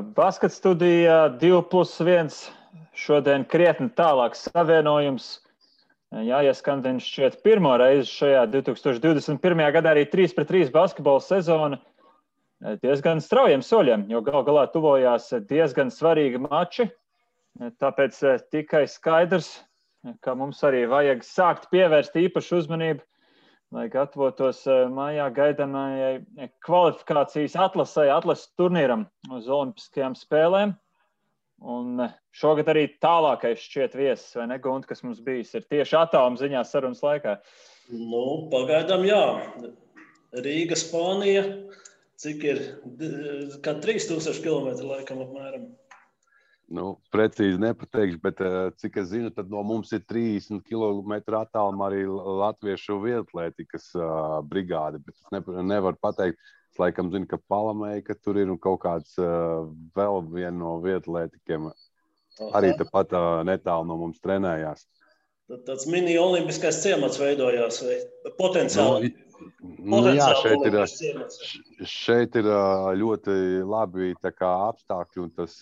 Basket studija 2+1 šodien krietni tālāks savienojums. Jāieskan šķiet pirmo reizi šajā 2021. gadā arī 3-3 basketbola sezona diezgan straujiem soļiem, jo gal galā tuvojās diezgan svarīgi mači. Tāpēc tikai skaidrs, ka mums arī vajag sākt pievērst īpašu uzmanību, lai gatavotos mājā gaidāmajai kvalifikācijas atlases turnīram uz Olimpiskajām spēlēm. Un šogad arī tālākais šķiet viesis, vai ne, Gunti, kas mums bijis, ir tieši attāluma ziņā sarunas laikā. Pagaidām jā. Rīga, Spānija, cik ir, kā 3000 kilometri laikam apmēram. Precīzi nepateikšu, bet cik es zinu, tad no mums ir 30 kilometru attālumā arī latviešu vietlētikas brigāde, bet es nevaru pateikt. Es laikam zinu, ka Palamēja tur ir un kaut kāds vēl viena no vietlētikiem arī tepat netālu no mums trenējās. Tāds mini-olimpiskais ciemats veidojās vai potenciāli? Šeit ir ļoti labi apstākļi un tas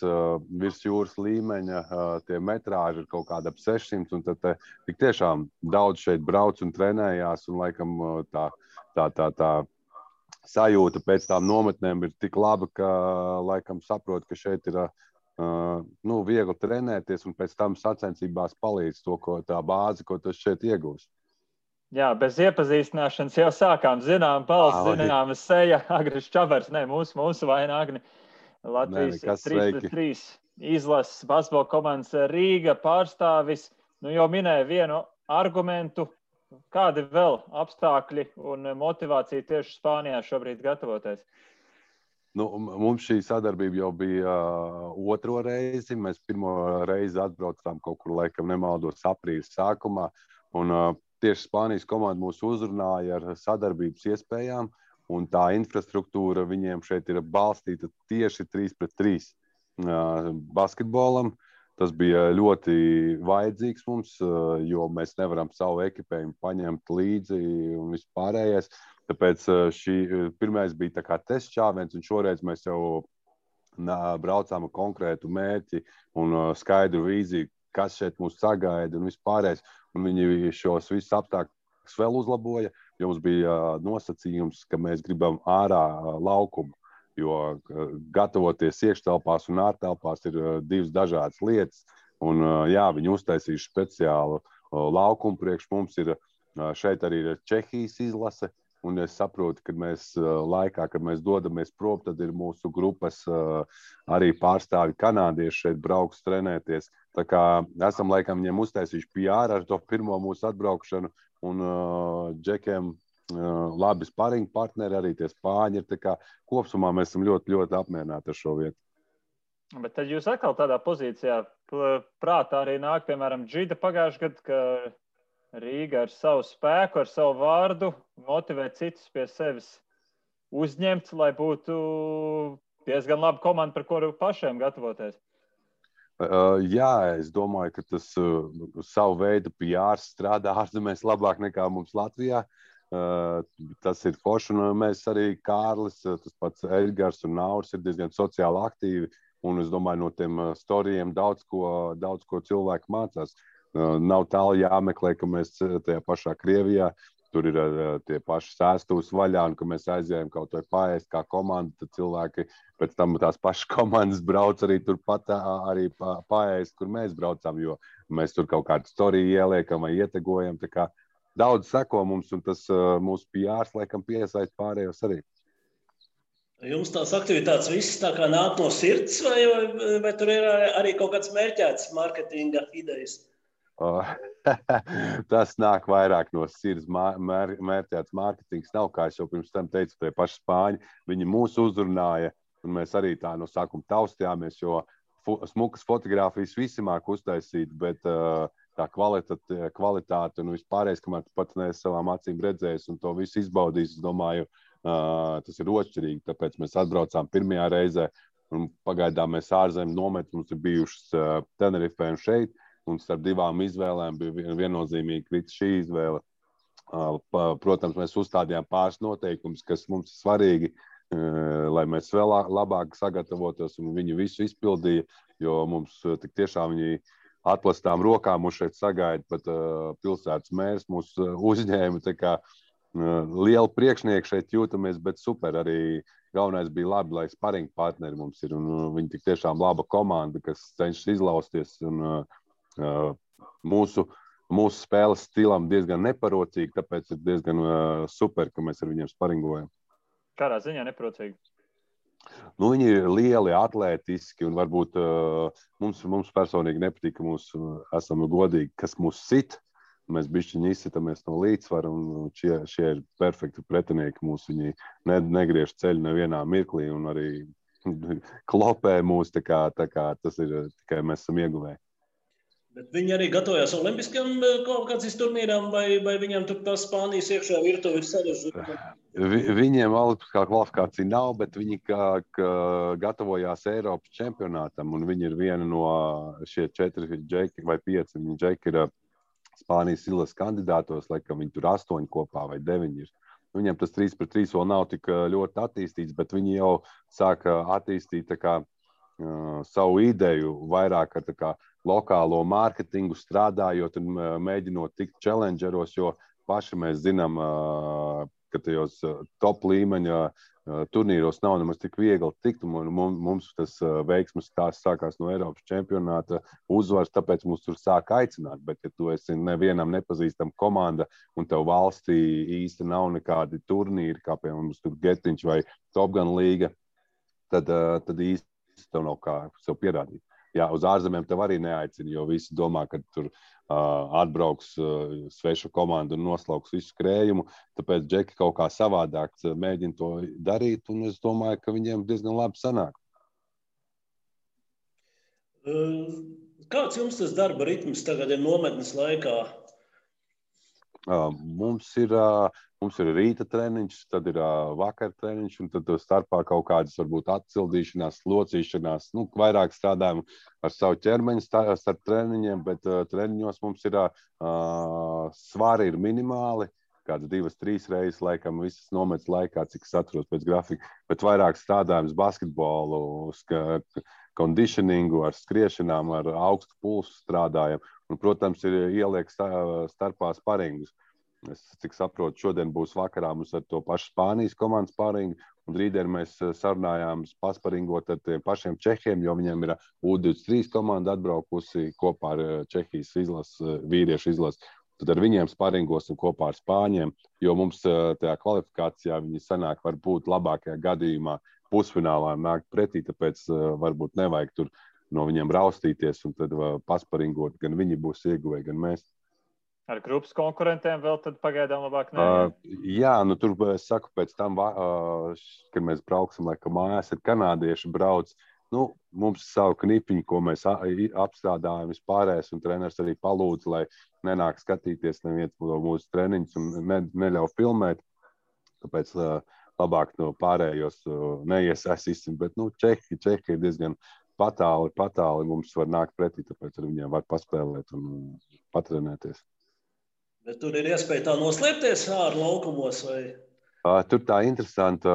virs jūras līmeņa tie metrāži ir kaut kāda ap 600 un tad tik tiešām daudz šeit brauc un trenējās un laikam tā sajūta pēc tām nometnēm ir tik laba, ka laikam saprot, ka šeit ir viegli trenēties un pēc tam sacensībās palīdz tā bāzi, ko tas šeit iegūst. Jā, bez iepazīstināšanas jau sākām. Zinām balss, zināma seja, Agris Čabers, mūsu vaina Agni. Latvijas 3-3 izlases basketbola komandas Rīga pārstāvis. Jau minēja vienu argumentu. Kādi vēl apstākļi un motivācija tieši Spānijā šobrīd gatavoties? Mums šī sadarbība jau bija otro reizi. Mēs pirmo reizi atbraucām kaut kur, laikam nemaldos, aprīļa sākumā. Un tieši Spānijas komanda mūs uzrunāja ar sadarbības iespējām. Un tā infrastruktūra viņiem šeit ir balstīta tieši 3-3 basketbolam. Tas bija ļoti vajadzīgs mums, jo mēs nevaram savu ekipējumu paņemt līdzi un vispārējais. Tāpēc pirmais bija tā kā tests šāviens, un šoreiz mēs jau braucām ar konkrētu mērķi un skaidru vīziju, kas šeit mūs sagaida un vispārējais. Un viņi šos visus apstākļus vēl uzlaboja, jo mums bija nosacījums, ka mēs gribam ārā laukumu. Jo gatavoties iekštelpās un ārtelpās ir divas dažādas lietas. Un, viņi uztaisījuši speciālu laukumu priekš mums. Šeit arī ir Čehijas izlase. Un es saprotu, ka mēs laikā, kad mēs dodamies prom, tad ir mūsu grupas arī pārstāvi kanādieši šeit brauks trenēties. Tā kā esam laikam viņiem uztaisījuši PR ar to pirmo mūsu atbraukšanu. Un Džekiem labi sparinga partneri, arī tie spāņi ir. Tā kā kopsumā mēs esam ļoti, ļoti apmierināti ar šo vietu. Bet tad jūs atkal tādā pozīcijā prātā arī nāk, piemēram, Džida pagājušajā gadā, ka Rīga ar savu spēku, ar savu vārdu motivē citus pie sevis uzņemt, lai būtu diezgan laba komanda, par kuru pašiem gatavoties. Jā, es domāju, ka tas savu veidu PR strādā ārzemēs labāk nekā mums Latvijā. Tas ir forši, un mēs arī Kārlis, tas pats Edgars un Nauris ir diezgan sociāli aktīvi, un es domāju, no tiem storijiem daudz ko cilvēki mācās. Nav tālu jāmeklē, ka mēs tajā pašā Krievijā, tur ir tie paši sēstuvs vaļā, un ka mēs aizējām kaut vai paēst kā komanda, tad cilvēki pēc tam tās pašas komandas brauc arī turpat arī paēst, kur mēs braucām, jo mēs tur kaut kādu storiju ieliekam vai ietegojam, tā kā daudz seko mums, un tas mūsu PRs laikam piesaist pārējos arī. Jums tās aktivitātes visas tā kā nāk no sirds, vai tur ir arī kaut kāds mērķēts marketinga idejas? Tas nāk vairāk no sirds. Mērķēts mārketings nav, kā es jau pirms tam teicu, tie paši spāņi. Viņi mūs uzrunāja, un mēs arī tā no sākuma taustījāmies, jo smukas fotogrāfijas visi māk uztaisīt, bet tā kvalitāte un vispārējais, kamēr tu pat neesi savām acīm redzējis un to visu izbaudījis, es domāju, tas ir otršķirīgi. Tāpēc mēs atbraucām pirmajā reizē, un pagaidām mēs ārzemju nometnes mums ir bijušas Tenerifē un šeit. Un starp divām izvēlēm bija viennozīmīgi krita šī izvēle. Protams, mēs uzstādījām pāris noteikumus, kas mums ir svarīgi. lai mēs vēl labāk sagatavotos, un viņi visu izpildīja, jo mums tik tiešām viņi atplastām rokām mūs šeit sagaida, pat pilsētas mērs mūs uzņēma, tā kā liela priekšnieka šeit jūtamies, bet super arī galvenais bija labi, lai sparing partneri mums ir, un viņi tik tiešām laba komanda, kas cenšas izlausties, un mūsu spēles stilam diezgan neparocīgi, tāpēc ir diezgan super, ka mēs ar viņiem sparingojam. Kādā ziņā neparocīgi? Nu, viņi ir lieli, atlētiski, un varbūt mums personīgi nepatīk, ka esam godīgi, kas mūs sit. Mēs bišķiņi izsitamies no līdzsvara, un šie ir perfekti pretinieki mūs. Viņi negriež ceļu nevienā mirklī, un arī klopē mūs, tā kā tas ir tikai mēs esam ieguvēji. Bet viņi arī gatavojās olimpiskajam kvalifikācijas turnīram, vai viņiem tur tā Spānijas iekšā virtuve ir sarežģīta? Viņiem olimpiskā kvalifikācija nav, bet viņi gatavojās Eiropas čempionātam, un viņi ir viena no šie 4 džeki vai 5 džeki ir Spānijas izlases kandidātos, laikam viņi tur 8 kopā vai 9 ir. Viņiem tas 3-3 vēl nav tik ļoti attīstīts, bet viņi jau sāka attīstīt tā kā savu ideju vairāk ar tā kā lokālo mārketingu strādājot un mēģinot tikt challengeros, jo paši mēs zinām, ka tajos top līmeņa turnīros nav nemaz tik viegli tikt, un mums tas veiksmes stāsts sākās no Eiropas čempionāta uzvaras, tāpēc mums tur sāk aicināt, bet ja tu esi nevienam nepazīstam komanda un tev valstī īsti nav nekādi turnīri, kā piemēram mums tur Getiņš vai Top Gun līga, tad īsti tev nav kā sev pierādīt. Jā, uz ārzemēm tev arī neaicina, jo visi domā, ka tur atbrauks sveša komanda un noslauks visu skrējumu, tāpēc džeki kaut kā savādāk mēģina to darīt, un es domāju, ka viņiem diezgan labi sanāk. Kāds jums tas darba ritms tagad ir nometnes laikā? Mums ir rīta treniņš, tad ir vakar treniņš, un tad starpā kaut kādas varbūt atcildīšanās, locīšanās. Vairāk strādājam ar savu ķermeņu starp treniņiem, bet treniņos mums ir svari ir minimāli, kāds 2-3 reizes laikam visas nometnes laikā, cik es atceros pēc grafika, bet vairāk strādājam basketbolu, conditioningu, ar skriešanām, ar augstu pulsu strādājam. Un, protams, ir ieliek starpā sparingus. Es cik saprotu, šodien būs vakarā mums ar to pašu Spānijas komandas sparingu, un rītdien mēs sarunājām pasparingot ar tiem pašiem Čehiem, jo viņiem ir U23 komanda atbraukusi kopā ar Čehijas vīriešu izlases. Tad ar viņiem sparingosim kopā ar Spāņiem, jo mums tajā kvalifikācijā viņi sanāk varbūt labākajā gadījumā pusfinālā nākt pretī, tāpēc varbūt nevajag tur no viņiem raustīties un tad pasparingot, gan viņi būs ieguvēji, gan mēs. Ar grupas konkurentiem vēl tad pagaidām labāk ne? Jā, tur es saku, pēc tam, kad mēs brauksim, laikam mājās, ir kanādieši brauc. Mums savu knipiņu, ko mēs apstrādājam vispārējais, un treneris arī palūdz, lai nenāk skatīties neviens no mūsu treniņus un neļauj filmēt. Tāpēc labāk no pārējos neiesaistīsim, bet Čehi ir diezgan patāli mums var nākt pretī, tāpēc ar viņiem var paspēlēt un patrenēties. Bet tur ir iespēja tā noslēpties ārā laukumos vai? Tur tā interesanta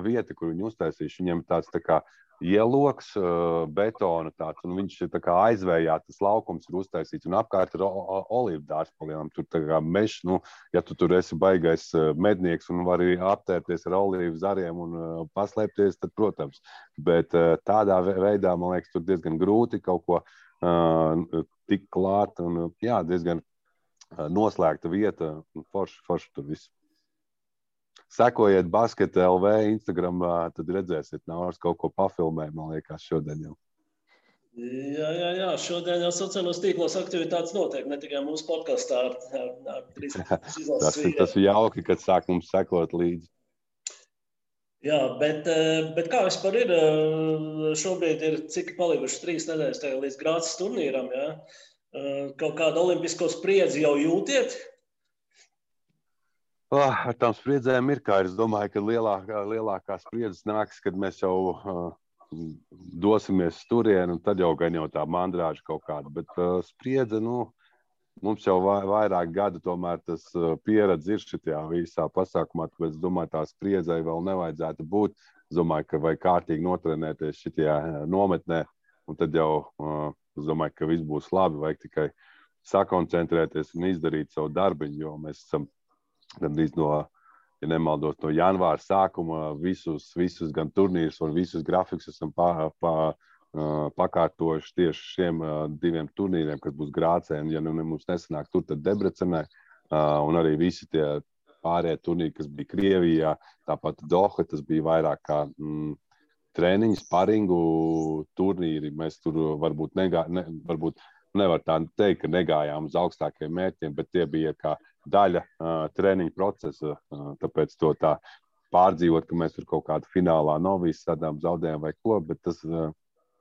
vieta, kur viņi uztaisījuši. Viņiem tāds tā kā ieloks, betona tāds, un viņš ir tā kā aizvējā, tas laukums ir uztaisīts, un apkārt ir olīvu dārs palielam. Tur tā kā mežs, ja tu tur esi baigais mednieks un vari aptērties ar olīvu zariem un paslēpties, tad, protams. Bet tādā veidā, man liekas, tur diezgan grūti kaut ko tik klāt, un jā, diezgan noslēgta vieta, un forši tur viss. Sekojiet Basket LV Instagramā, tad redzēsiet, Nauris kaut ko pafilmē, man liekas, šodien jau. Jā, šodien jau sociālos tīklos aktivitātes notiek, ne tikai mūsu podkastā ar 3 izlases vīriem. Tas ir jauki, kad sāk mums sekot līdzi. Jā, bet kā vispār ir? Šobrīd ir cik palikuši 3 nedēļas līdz Grācas turnīram, jā? Kaut kādu olimpisko spriedzi jau jūtiet? Ar tām spriedzēm ir, kā es domāju, ka lielākā spriedzes nāks, kad mēs jau dosimies turien, un tad jau gan jau tā mandrāža kaut kāda. Bet spriedze, mums jau vairāk gadu tomēr tas pieredze ir šitajā visā pasākumā, tāpēc es domāju, tā spriedzei vēl nevajadzētu būt. Es domāju, ka vajag kārtīgi notrenēties šitajā nometnē, un tad jau es domāju, ka viss būs labi, vajag tikai sakoncentrēties un izdarīt savu darbiņu, jo mēs esam gandrīz ja nemaldos, no janvāra sākuma visus gan turnīrus un visus grafikus esam pakārtojuši tieši šiem 2 turnīriem, kas būs Grācē, un ja mums nesanāk tur, tad Debrecenē, un arī visi tie pārējie turnīri, kas bija Krievijā, tāpat Doha, tas bija vairāk kā treniņu, sparingu turnīri. Mēs tur varbūt nevar tā teikt, ka negājām uz augstākajiem mērķiem, bet tie bija kā daļa treniņu procesa, tāpēc to tā pārdzīvot, ka mēs tur kaut kādu finālā novīs sadām zaudējām vai ko, bet tas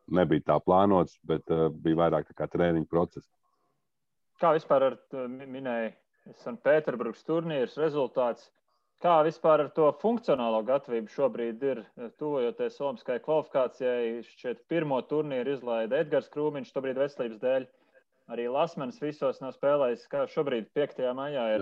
nebija tā plānots, bet bija vairāk tā kā treniņu process. Kā vispār minēja Sanktpēterburgas turnīrs rezultāts, kā vispār ar to funkcionālo gatavību šobrīd ir tuvojoties olimpiskajai kvalifikācijai? Šķiet, pirmo turnīru izlaida Edgars Krūmiņš, šobrīd veselības dēļ. Arī Lasmanis visos nav spēlējis, kā šobrīd 5. maijā ir.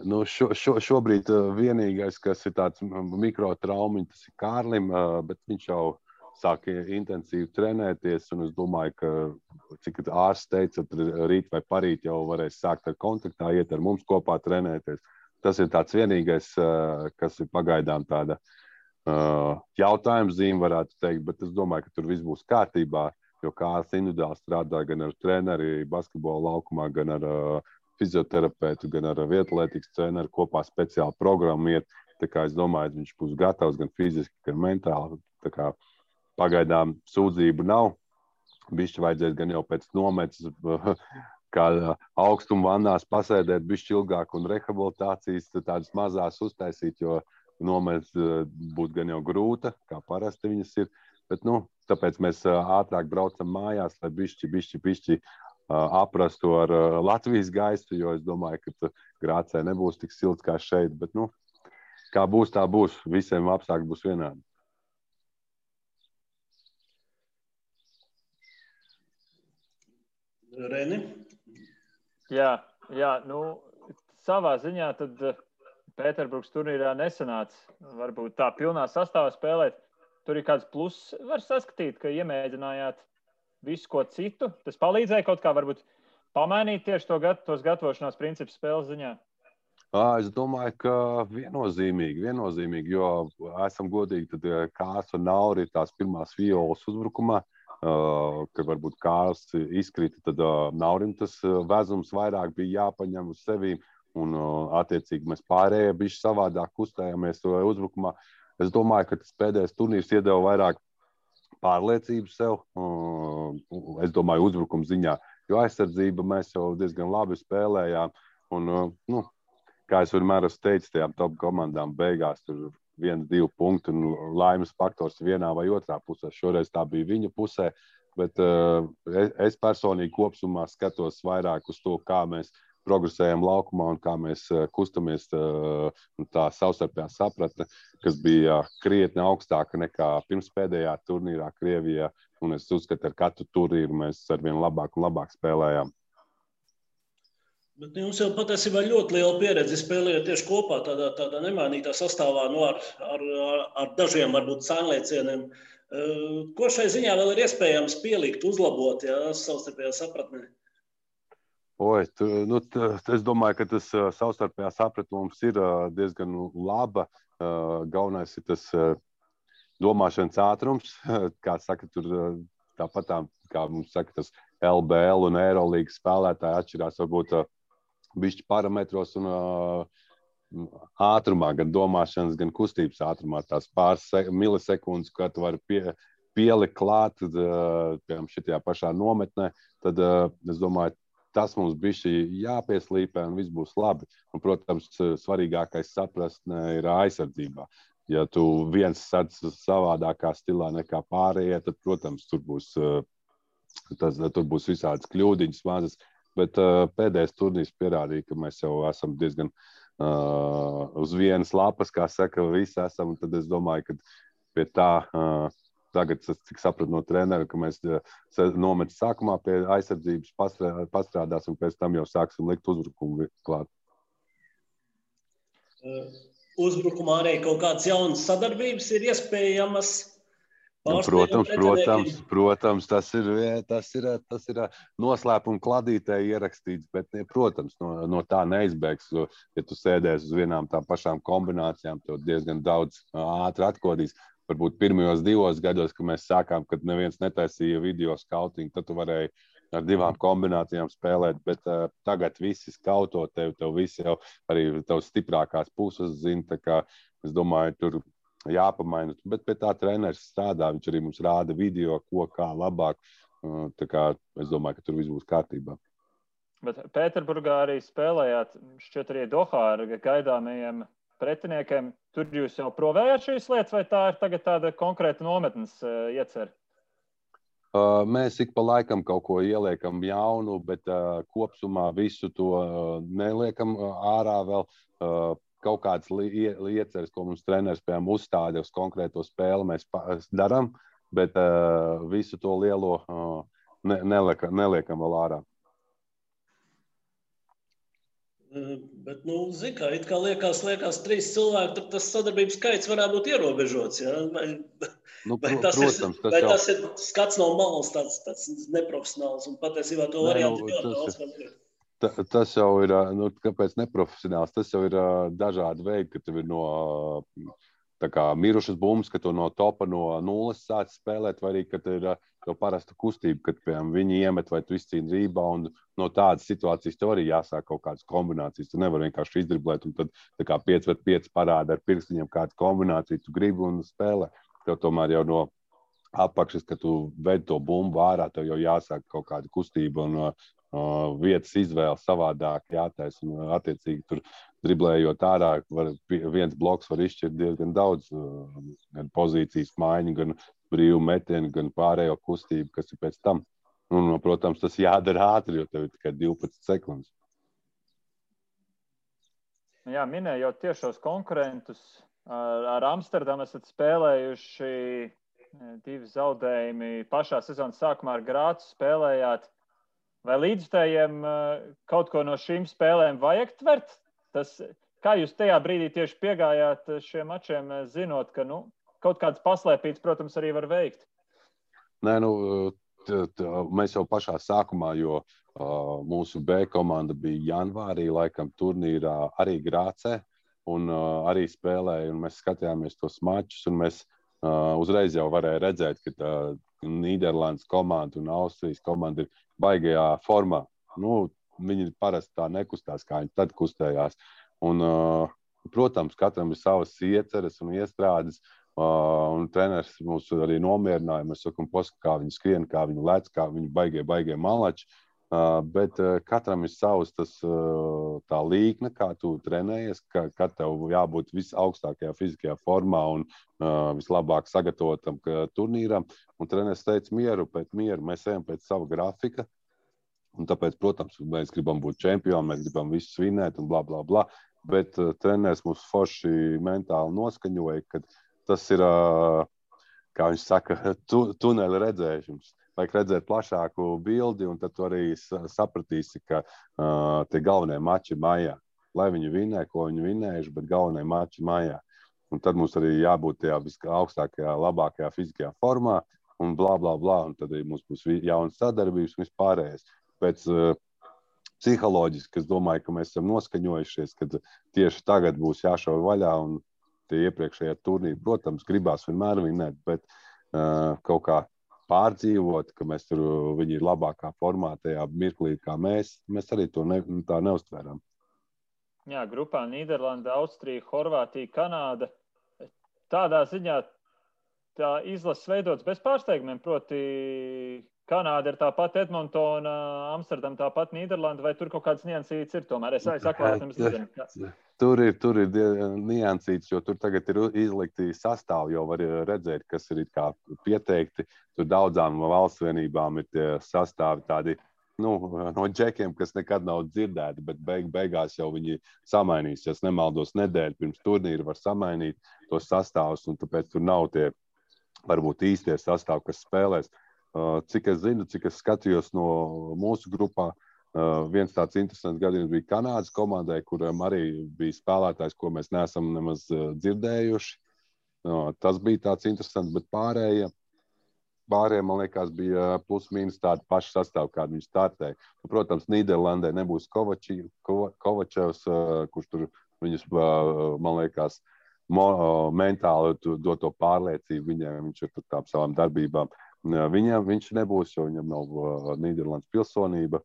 Nu, šobrīd vienīgais, kas ir tāds mikrotraumiņš, tas ir Kārlim, bet viņš jau sāk intensīvi trenēties, un es domāju, ka, cik ārsts teica, rīt vai parīt jau varēs sākt ar kontaktā, iet ar mums kopā trenēties. Tas ir tāds vienīgais, kas ir pagaidām tāda jautājums zīme, varētu teikt, bet es domāju, ka tur viss būs kārtībā, jo Kārlis individuāli strādā gan ar treneri basketbola laukumā, gan ar fizioterapeitu, gan ar vietlētikas treneru, kopā speciāli programmu iet. Tā kā es domāju, ka viņš būs gatavs gan fiziski, gan mentāli. Tā kā pagaidām sūdzību nav. Bišķi vajadzēs gan jau pēc nometas, kā augstuma vannās pasēdēt bišķi ilgāk un rehabilitācijas tādas mazās uztaisīt, jo nometas būs gan jau grūta, kā parasti viņas ir. Bet, tāpēc mēs ātrāk braucam mājās, lai bišķi aprastu ar Latvijas gaistu, jo es domāju, ka Grācē nebūs tik silts kā šeit. Bet, kā būs, tā būs. Visiem apstākļi būs vienādi. Reni? Jā, savā ziņā tad Pēterburgas turnīrā nesanāca varbūt tā pilnā sastāvā spēlēt. Tur ir kāds pluss, var saskatīt, ka iemēģinājāt visu ko citu. Tas palīdzēja kaut kā varbūt pamainīt tieši tos gatavošanās principus spēles ziņā? Es domāju, ka viennozīmīgi, jo esam godīgi, tad Kārs un Nauri ir tās pirmās violas uzbrukumā, kad varbūt Kārs izkrita, tad Naurim tas vezums vairāk bija jāpaņem uz sevīm, un attiecīgi mēs pārējie bišķi savādāk kustējāmies uzbrukumā. Es domāju, ka tas pēdējais turnīrs iedeva vairāk pārliecību sev, es domāju, uzbrukuma ziņā, jo aizsardzība mēs jau diezgan labi spēlējām, un, kā es vienmēr esmu teicis, tajām top komandām beigās tur 1-2 punkti un laimes faktors vienā vai otrā pusē. Šoreiz tā bija viņa pusē, bet es personīgi kopsumā skatos vairāk uz to, kā mēs progresējam laukumā un kā mēs kustamies, tā savstarpējā sapratne, kas bija krietni augstāka nekā pirms pēdējā turnīrā Krievijā, un es uzskatu, ar katru turnīru mēs arvien labāk un labāk spēlējām. Bet jums jau patiesībā ļoti liela pieredze spēlējot tieši kopā tādā nemainītā sastāvā ar dažiem varbūt sānliecieniem. Ko šai ziņā vēl ir iespējams pielikt, uzlabot, savstarpējā sapratnē? Es domāju, ka tas savstarpējā sapratne mums ir diezgan laba. Galvenais ir tas domāšanas ātrums, kā saka, tur tāpat kā mums saka, tas LBL un Eirolīgas spēlētāji atšķirās varbūt bišķi parametros un ātrumā, gan domāšanas, gan kustības ātrumā. Tās pāris milisekundes, kā tu vari pielikt klāt, piemēram, šitajā pašā nometnē, tad es domāju, tas mums bišķi jāpieslīpē un viss būs labi. Un, protams, svarīgākais sapratne ir aizsardzībā. Ja tu viens sats savādākā stilā nekā pārējie, tad, protams, tur būs visādas kļūdiņas mazas. Bet pēdējais turnīrs pierādīja, ka mēs jau esam diezgan uz vienas lapas, kā saka, visi esam. Un tad es domāju, ka pie tā tagad es tik sapratu no trenera, ka mēs nometam sākumā pie aizsardzības pastrādāsim, un pēc tam jau sāksim likt uzbrukumu klāt. Uzbrukumā arī kaut kādas jaunas sadarbības ir iespējamas. Protams, tas ir noslēpuma kladītē ierakstīts, bet, protams, no tā neizbēgs. Ja tu sēdēsi uz vienām tām pašām kombinācijām, tev diezgan daudz ātri atkodīs. Varbūt pirmajos 2 gados, kad mēs sākām, kad neviens netaisīja video skautingu, tad tu varēji ar 2 kombinācijām spēlēt, bet tagad visi skauto tev visi jau arī tavs stiprākās puses zina, tā kā es domāju, tur jāpamaina, bet pie tā treneris strādā, viņš arī mums rāda video, ko kā labāk, tā kā es domāju, ka tur viss būs kārtībā. Bet Pēterburgā arī spēlējāt, šķiet arī Dohā ar gaidāmajiem pretiniekiem, tur jūs jau provējāt šīs lietas, vai tā ir tagad tāda konkrēta nometnes iecer? Mēs ik pa laikam kaut ko ieliekam jaunu, bet kopsumā visu to neliekam ārā vēl. Kaut kādas ieceres, ko mums treneris piemēram uzstāda uz konkrēto spēli, mēs darām, bet visu to lielo neliekam vēl ārā. Bet, zini, kā, it kā liekas 3 cilvēki, tad tas sadarbības skaits varētu būt ierobežots, ja? Tas ir skats no malas tāds neprofesionāls, un patiesībā to variantu ļoti daudz vēl ir. Tas jau ir, kāpēc neprofesionāls, tas jau ir dažādi veidi, ka tev ir no tā kā mirušas bumbas, ka tu no topa no nulles sāc spēlēt, vai arī, ka tev ir tev parasta kustība, kad piemēram viņi iemet vai tu izcīni reboundu. No tādas situācijas tev arī jāsāk kaut kādas kombinācijas. Tu nevari vienkārši izdriblēt un tad tā kā 5-5 parāda ar pirkstiņiem kādu kombināciju, tu gribi un spēlē. Tev tomēr jau no apakšas, ka tu ved to bumbu ārā, tev jau jāsāk kaut kāda kustība un vietas izvēle savādāk jātais, un attiecīgi tur driblējot ārā, viens bloks var izšķirt diezgan daudz, gan pozīcijas maiņu, gan brīvu metienu, gan pārējo kustību, kas ir pēc tam. Un, protams, tas jādara ātri, jo tev ir tikai 12 sekundes. Jā, minējot tiešos konkurentus, ar Amsterdamu esat spēlējuši 2 zaudējumi pašā sezonas sākumā ar Grācu spēlējāt. Vai līdzstājiem kaut ko no šīm spēlēm vajag tvert? Kā jūs tajā brīdī tieši piegājāt šiem mačiem, zinot, ka kaut kāds paslēpīts, protams, arī var veikt? Nē, mēs jau pašā sākumā, jo mūsu B komanda bija janvārī, laikam turnīrā arī Grācē, un arī spēlēja, un mēs skatījāmies tos mačus, un mēs uzreiz jau varēja redzēt, ka Nīderlandes komanda un Austrijas komanda ir baigajā formā. Viņi parasti tā nekustās, kā viņi tad kustējās. Un, protams, katram ir savas ieceres un iestrādes, un treneris mūs arī nomierināja. Mēs sakam, kā viņi skrien, kā viņi lec, kā viņi baigie malači. Bet katram ir savs tā līkne, kā tu trenējies, kad tev jābūt visaugstākajā fiziskajā formā un vislabāk sagatavotam turnīram. Un treneris teica mieru pēc mieru, mēs ejam pēc sava grafika. Un tāpēc, protams, mēs gribam būt čempioni, mēs gribam visu svinēt un bla, bla, bla. Bet treneris mūs forši mentāli noskaņoja, ka tas ir, kā viņš saka, tuneļa redzēšums. Vajag redzēt plašāku bildi, un tad tu arī sapratīsi, ka tie galvenie mači ir mājā. Lai viņi vinē, ko viņi vinējuši, bet galvenie mači ir mājā. Un tad mums arī jābūt tajā augstākajā, labākajā fiziskajā formā, un blā, blā, blā. Un tad arī mums būs jaunas sadarbības un vispārējais. Pēc psiholoģiski, es domāju, ka mēs esam noskaņojušies, ka tieši tagad būs jāšauj vaļā, un tie iepriekšējie turnīri, protams, gribās vienmēr vinēt, bet kaut kā pārdzīvot, ka viņi ir labākā formā tajā mirklī, kā mēs arī to tā neuztvērām. Jā, grupā Nīderlanda, Austrija, Horvātija, Kanāda. Tādā ziņā tā izlases veidots bez pārsteigumiem, proti Kanāda ir tāpat Edmontona, Amsterdam tāpat Nīderlanda, vai tur kaut kāds niansīts ir tomēr? Es atklāt, jums nezinu. Tur ir niansīts, jo tur tagad ir izlikti sastāvi, jau var redzēt, kas ir kā pieteikti. Tur daudzām valsts vienībām ir tie sastāvi tādi, no džekiem, kas nekad nav dzirdēti, bet beigās jau viņi samainīs. Ja es nemaldos nedēļu pirms turnīra var samainīt tos sastāvus, un tāpēc tur nav tie varbūt īstie sastāv, kas spēlēs. Cik es zinu, cik es skatījos no mūsu grupā, viens tāds interesants gadījums bija Kanādas komandai, kuram arī bija spēlētājs, ko mēs neesam nemaz dzirdējuši. Tas bija tāds interesants, bet pārējie, man liekas, bija plus-mínus tādi paši sastāvi, kādi viņi startēja. Protams, Nīderlandē nebūs Kovačevs, kurš tur viņus, man liekas, mentāli dod to pārliecību viņiem, viņš ir tur tām savām darbībām. Viņš nebūs, jo viņam nav Nīderlandes pilsonība.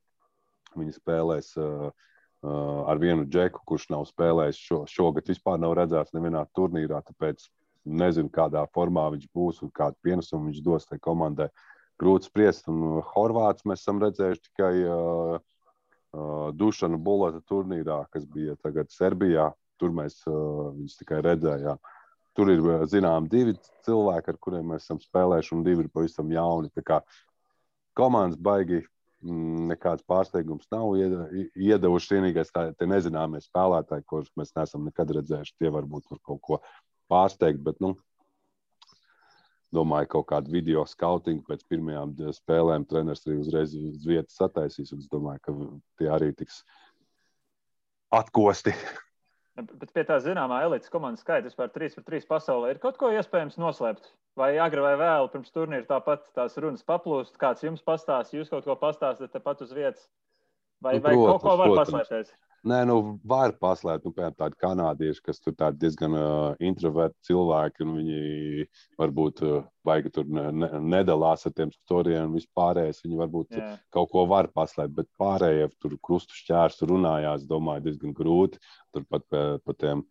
Viņi spēlēs ar vienu džeku, kurš nav spēlējis šogad vispār nav redzēts nevienā turnīrā, tāpēc nezinu, kādā formā viņš būs un kādu pienesumu viņš dos tai komandai. Grūti spriest, un Horvāts mēs esam redzējuši tikai Dušanu Bulata turnīrā, kas bija tagad Serbijā. Tur mēs viņus tikai redzējām. Tur ir, zinām, 2 cilvēki, ar kuriem mēs esam spēlējuši, un 2 ir pavisam jauni. Tā kā komandas baigi nekāds pārsteigums nav iedevuši. Vienīgais tie nezināmie spēlētāji, kurus mēs neesam nekad redzējuši, tie varbūt var kaut ko pārsteigt, bet, domāju, kaut kādu video skautingu pēc pirmajām spēlēm treneris arī uzreiz uz vietas sataisīs, un es domāju, ka tie arī tiks atkosti. Bet pie tā zināmā elites komandas skaita vispār 3-3 pasaulē ir kaut ko iespējams noslēpt? Vai agri vai vēlu pirms turnīra tāpat tās runas paplūst? Kāds jums pastāst, jūs kaut ko pastāstat tepat uz vietas? Vai kaut ko var paslēpties? Nē, var paslēpt, piemēram, tādi kanādieši, kas tur tādi diezgan introverti cilvēki, un viņi varbūt baigi tur nedalās ar tiem storijiem un vispārējais. Viņi varbūt kaut ko var paslēpt, bet pārējie tur krustu šķērsu runājās, domāju, diezgan grūti. Turpat pa tiem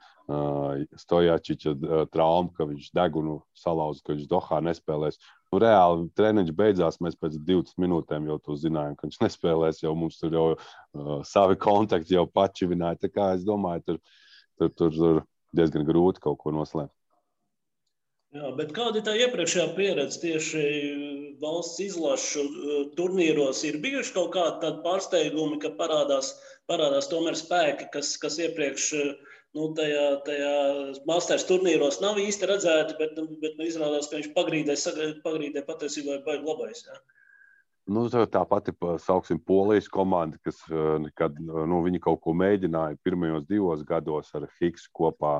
Stojačiča traumu, ka viņš degunu salauza, ka viņš Dohā nespēlēs. Reāli treniņš beidzās, mēs pēc 20 minūtēm jau to zinājām, ka viņš nespēlēs, jau mums tur jau savi kontakti jau pačivināja. Tā kā es domāju, tur diezgan grūti kaut ko noslēpt. Jā, bet kāda ir tā iepriekšējā pieredze tieši valsts izlašu turnīros? Ir bijuši kaut kādi tādi pārsteigumi, ka parādās tomēr spēki, kas iepriekš tajā Masters turnīros nav īsti redzēti, bet izrādās, ka viņš pagrīdē patiesībā ir baigi labais. Jā. Tā pati, sauksim, Polijas komanda, kas nekad, viņi kaut ko mēģināja pirmajos 2 gados ar Higsu kopā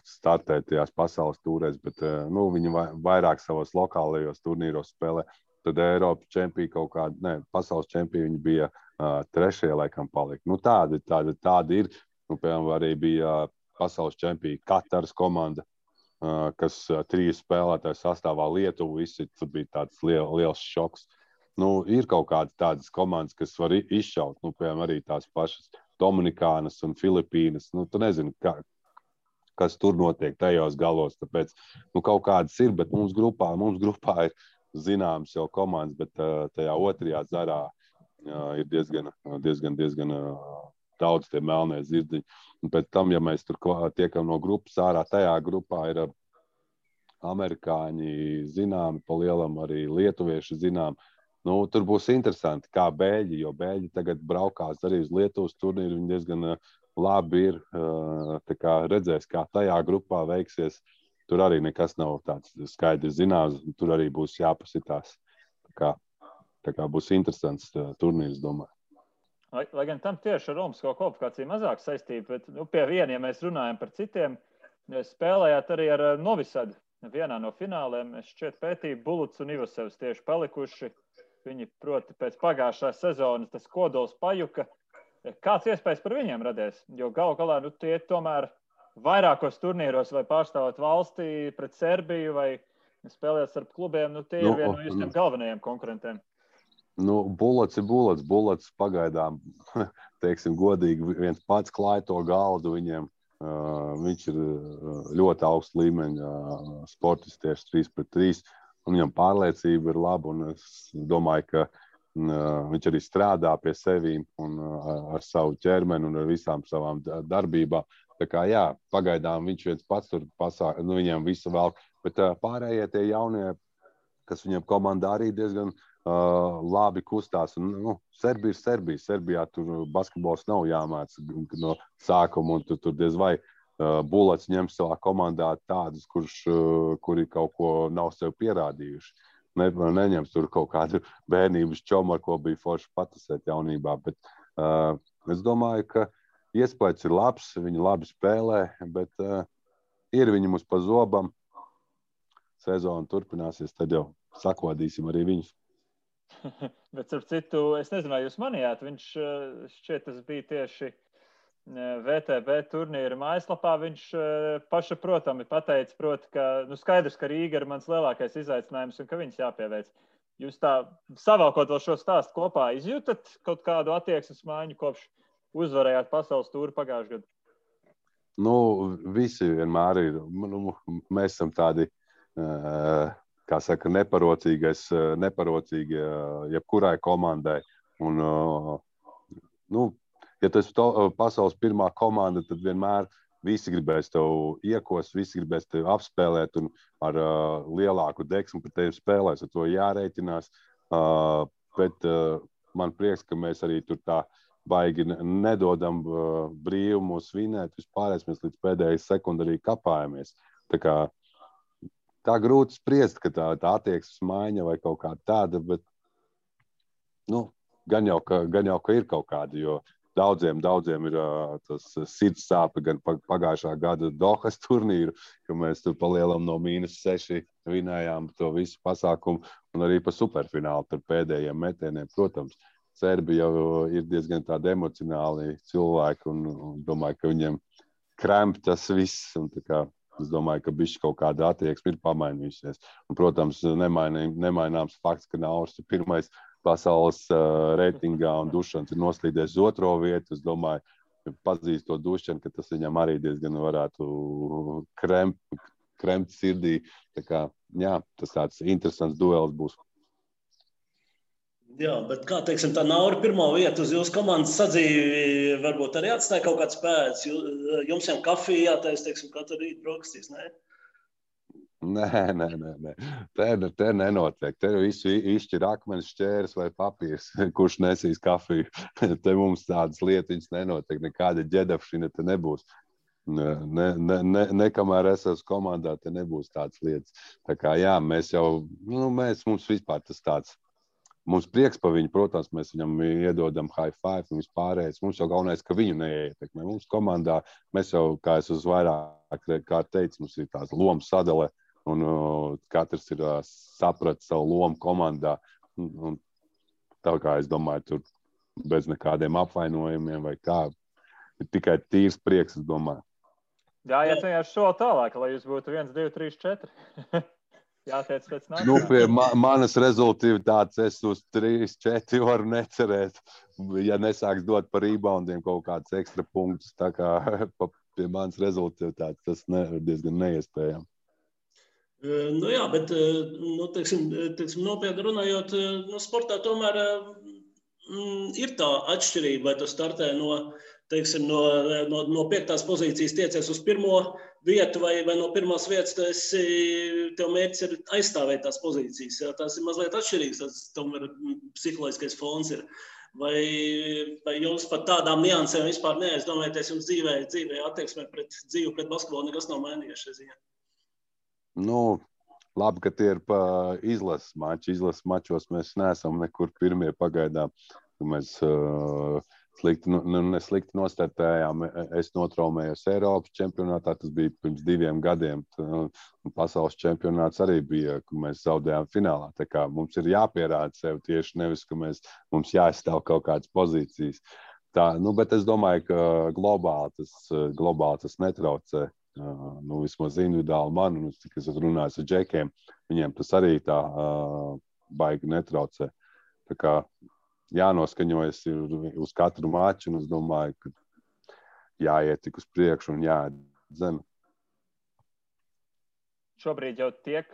startēt tajās pasaules tūrēs, bet viņi vairāk savos lokālajos turnīros spēlē. Tad Eiropas čempioni pasaules čempioni viņi bija 3. laikam palika. Tādi ir. Piemēram, arī bija pasaules čempioni Kataras komanda, kas 3 spēlētāju sastāvā Lietuvu izsit. Tur bija tāds liels šoks. Ir kaut kādas tādas komandas, kas var izšaut. Piemēram, arī tās pašas Dominikānas un Filipīnas. Tu nezini, kas tur notiek tajos galos. Tāpēc kaut kādas ir, bet mums grupā ir zināmas jau komandas, bet tajā otrajā zarā ir diezgan daudz tie melnie zirdziņi. Un pēc tam, ja mēs tur tiekam no grupas ārā, tajā grupā ir amerikāņi zināmi, pa lielam arī lietuvieši zināmi. Tur būs interesanti, kā Bēļi, jo Bēļi tagad braukās arī uz Lietuvas turnīru. Viņi diezgan labi ir. Tā kā redzēs, kā tajā grupā veiksies. Tur arī nekas nav tāds skaidrs zināms. Tur arī būs jāpasitās. Tā kā būs interesants turnīrs, domāju. Lai gan tam tieši ar Olimpisko kvalifikāciju mazāk saistība, bet pie viena, ja mēs runājam par citiem, spēlējāt arī ar Novisadu. Vienā no fināliem es šķiet pētīju Bulats un Ivasevs tieši palikuši. Viņi, proti, pēc pagājušās sezonas tas kodols pajuka. Kāds iespējas par viņiem radies? Jo galu galā tie tomēr vairākos turnīros vai pārstāvot valstī pret Serbiju vai spēlēt starp klubiem, tie ir viena no jūsiem galvenajiem konkurentiem. Bulats ir Bulats. Bulats pagaidām, teiksim, godīgi viens pats klāja to galdu viņiem. Viņš ir ļoti augsts līmeņa sportists tieši 3-3. Un viņam pārliecība ir laba. Un es domāju, ka viņš arī strādā pie sevīm un ar savu ķermeni un ar visām savām darbībām. Tā kā jā, pagaidām viņš viens pats tur viņiem visu velk. Bet pārējie tie jaunie, kas viņam komandā arī diezgan labi kustās. Un, Serbija ir Serbija. Serbijā tur basketbols nav jāmāc no sākuma, un tur diez vai Bulets ņem savā komandā tādus, kuri kaut ko nav sev pierādījuši. Neņems tur kaut kādu bērnības čomu, ar ko bija forši patusēt jaunībā, bet es domāju, ka iespējas ir labs, viņi labi spēlē, bet ir viņi mums pa zobam. Sezona turpināsies, tad jau sakodīsim arī viņus. Bet, ar citu, es nezinu, vai jūs manījāt, viņš šķiet, tas bija tieši VTB turnīra mājaslapā, viņš pašaprotami pateica, ka skaidrs, ka Rīga ir mans lielākais izaicinājums un ka viņus jāpieveic. Jūs tā savākot vēl šo stāstu kopā izjūtat kaut kādu attieksmes maiņu kopš uzvarējāt pasaules tūri pagājušajā gadā? Visi vienmēr ir. Mēs esam tādi, kā saka, neparocīgi jebkurai komandai. Un, ja tas ir pasaules pirmā komanda, tad vienmēr visi gribēs tev iekost, visi gribēs tev apspēlēt un ar lielāku deksmu par tevi spēlēs. Ar to jārēķinās. Bet man prieks, ka mēs arī tur tā baigi nedodam brīvu mūs vinēt. Vispārējais mēs līdz pēdējai sekundē arī kapājamies. Tā grūti spriest, ka tā attieksmes maiņa vai kaut kā tāda, bet gan jau, ka ir kaut kāda, jo Daudziem ir tas sirds sāpe gan pagājušā gada Dohas turnīru, ka mēs tur palielam no -6 vinējām to visu pasākumu un arī pa superfinālu par pēdējiem metieniem. Protams, Serbi jau ir diezgan tādi emocionāli cilvēki un domāju, ka viņiem kremp tas viss. Un es domāju, ka bišķi kaut kāda attieksme ir pamainījusies. Un, protams, nemaināms fakts, ka Nauris ir pirmais pasaules reitingā un Dušans ir noslīdējis uz 2. vietu. Es domāju, pazīst to Dušanu, ka tas viņam arī diezgan varētu kremt sirdī. Tas tāds interesants duels būs. Jā, bet kā teiksim, tā Nauri pirmo vietu uz jūsu komandas sadzīvi varbūt arī atstāja kaut kāds pēdas. Jums jau kafija jātais, teiksim, katru rītu brokastīs, ne? Nē. Te nenotiek. Te visu izšķir akmens, šķērs vai papīrs, kurš nesīs kafiju. Te mums tādas lietiņas nenotiek. Nekāda ģedafšina te nebūs. Nekamēr es esmu komandā, te nebūs tādas lietas. Tā kā jā, mēs jau, mums vispār tas tāds. Mums prieks par viņu, protams, mēs viņam iedodam high five un vispārējais. Mums jau galvenais, ka viņu neietekmē. Mums komandā, mēs jau, kā es uz vairāk kā teicu, mums ir tāds lomu sadale. Un katrs ir sapratis savu lomu komandā. Un tā kā es domāju, tur bez nekādiem apvainojumiem vai kā. Ir tikai tīrs prieks, es domāju. Jā, vienkārši soli tālāk, lai jūs būtu 1, 2, 3, 4. Jāteic pēc nākamā. Pie manas rezultātas es uz 3, 4 varu necerēt. Ja nesāks dot par reboundiem kaut kādus ekstra punktus, tā kā pie manas rezultātas tas ir diezgan neiespējami. Jā, bet, teiksim, nopietni runājot, sportā tomēr ir tā atšķirība, vai tu startē no 5. pozīcijas tiecies uz 1. vietu vai no 1. vietas, tev mērķis ir aizstāvēt tās pozīcijas. Jā, tās ir mazliet atšķirīgas, tas tomēr psiholoģiskais fons ir. Vai jums par tādām niansēm vispār neaizdomājaties, jums dzīvē attieksmē pret basketbolu nekas nav mainījies šajā ziņā? Labi, ka tie ir pa izlases mači. Izlases mačos mēs neesam nekur pirmie pagaidām. Mēs neslikti nostartējām. Es notraumējos Eiropas čempionātā, tas bija pirms 2 gadiem. Pasaules čempionāts arī bija, ka mēs zaudējām finālā. Tā kā mums ir jāpierāda sev tieši nevis, ka mums jāizstāv kaut kādas pozīcijas. Bet es domāju, ka globāli tas netraucē. Vismaz individuāli man, un cik es runāju ar džekiem, viņiem tas arī tā baigi netraucē. Tā kā jānoskaņojas uz katru maču, un es domāju, ka jāiet tik uz priekšu un jāatdzen. Šobrīd jau tiek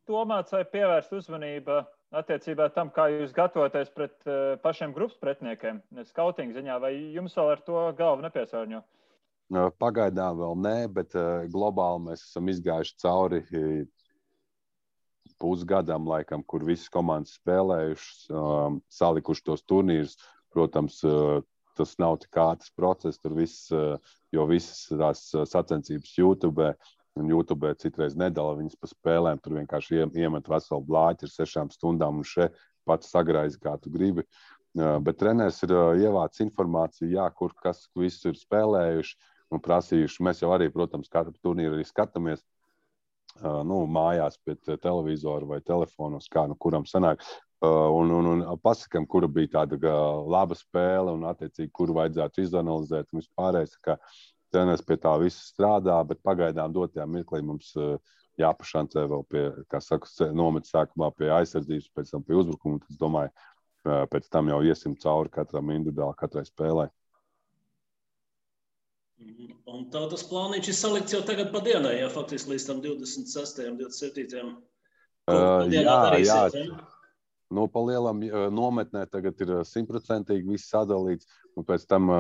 domāts vai pievērst uzmanība attiecībā tam, kā jūs gatavoties pret pašiem grupas pretniekiem, skautinga ziņā, vai jums vēl ar to galvu nepiesārņo? Pagaidām vēl nē, bet globāli mēs esam izgājuši cauri pusgadam, laikam, kur visas komandas spēlējušas, salikuši tos turnīrus. Protams, tas nav tik ātrs process, tur viss, jo visas tās sacensības YouTube, un YouTube citreiz nedala viņas pa spēlēm, tur vienkārši iemet veselu blāķi ar 6 stundām un še pats sagraizi, kā tu gribi. Bet treneris ir ievācis informāciju, jā, kur kas viss ir spēlējuši un prasījuši. Mēs jau arī, protams, katru turnīru arī skatāmies mājās pie televizora vai telefonos, kā kuram sanāk. Un pasakam, kura bija tāda laba spēle un attiecīgi, kuru vajadzētu izanalizēt un vispārējais, ka treneris pie tā visu strādā, bet pagaidām dotajā mirklī mums jāpašancē vēl pie, kā saka, nomet sākumā pie aizsardzības, pēc tam pie uzbrukuma. Es domāju, pēc tam jau iesim cauri katram individuāli, katrai spēlē. Un tā tas plāniņš ir salikts jau tagad pa dienai, ja faktiski līdz tam 26. 27. Jā. Nu, pa lielam nometnē tagad ir 100% viss sadalīts, un pēc tam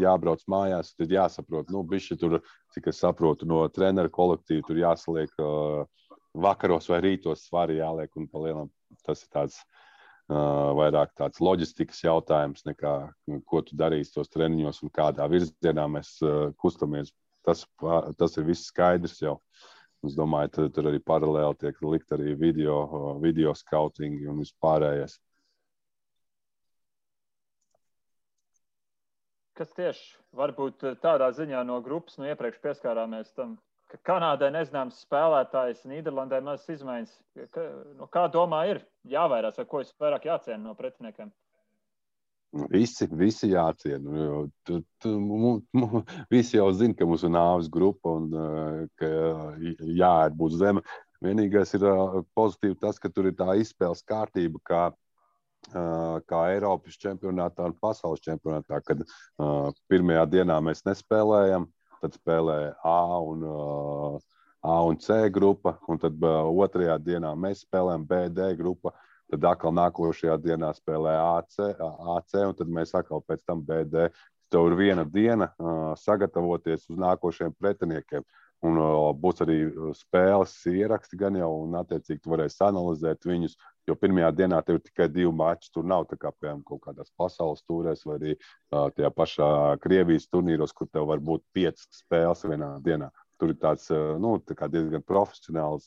jābrauc mājās, tad jāsaprot, bišķi tur, cik es saprotu, no treneru kolektīvu tur jāsaliek vakaros vai rītos svari jāliek, un pa lielam tas ir tāds vairāk tāds loģistikas jautājums, nekā ko tu darīsi tos treniņos un kādā virzienā mēs kustamies. Tas ir viss skaidrs jau. Es domāju, tur arī paralēli tiek likt arī video skautingi un vispārējais. Kas tieši varbūt tādā ziņā no grupas iepriekš pieskārāmies tam, ka Kanādai nezināms spēlētājs, Nīderlandē mazas izmaiņas. Kā domā ir jāvairās, vai ko vairāk jāciena no pretiniekiem? Visi jāciena. Visi jau zina, ka mums ir nāves grupa un ka jāēd būs zeme. Vienīgais ir pozitīvi tas, ka tur ir tā izspēles kārtība, kā Eiropas čempionātā un pasaules čempionātā, kad pirmajā dienā mēs nespēlējam, tad spēlē A un C grupa, un tad otrajā dienā mēs spēlējam B, D grupa. Tad atkal nākošajā dienā spēlē AC, un tad mēs atkal pēc tam BD. Tev ir viena diena sagatavoties uz nākošajiem pretiniekiem. Un būs arī spēles ieraksti gan jau, un attiecīgi tu varēsi analizēt viņus, jo pirmajā dienā tev ir tikai 2 mači. Tur nav tā kā, piemēram, kaut kādās pasaules tūrēs vai arī tajā pašā Krievijas turnīros, kur tev var būt 5 spēles vienā dienā. Tur ir tāds diezgan profesionāli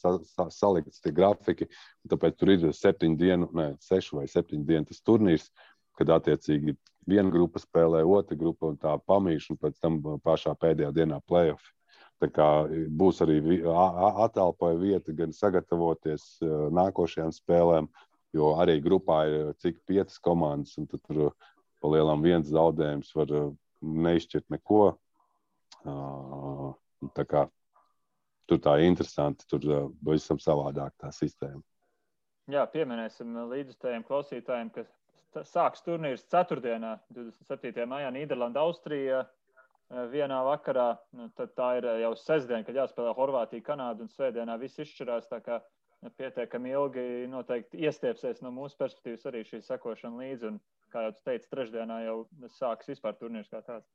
salikts tie grafiki, tāpēc tur ir 6 vai 7 dienu tas turnīrs, kad attiecīgi viena grupa spēlē, otra grupa un tā pamīš, un pēc tam pašā pēdējā dienā play-off. Tā kā būs arī atalpoja vieta gan sagatavoties nākošajām spēlēm, jo arī grupā ir cik 5 komandas, un tad tur pa lielam viens zaudējums var neizšķirt neko. Tā kā tur tā interesanti, tur visam savādāk tā sistēma. Jā, pieminēsim līdzjutējiem klausītājiem, ka sāks turnīrs ceturtdienā, 27. maijā, Nīderlanda, Austrija vienā vakarā. Tad tā ir jau sestdiena, kad jāspēlē Horvātija, Kanāda un svētdienā viss izšķirās, tā kā pietiekami ilgi noteikti iestiepsies no mūsu perspektīvas arī šī sekošana līdzi. Un, kā jau tu teici, trešdienā jau sāks vispār turnīrs kā tāds.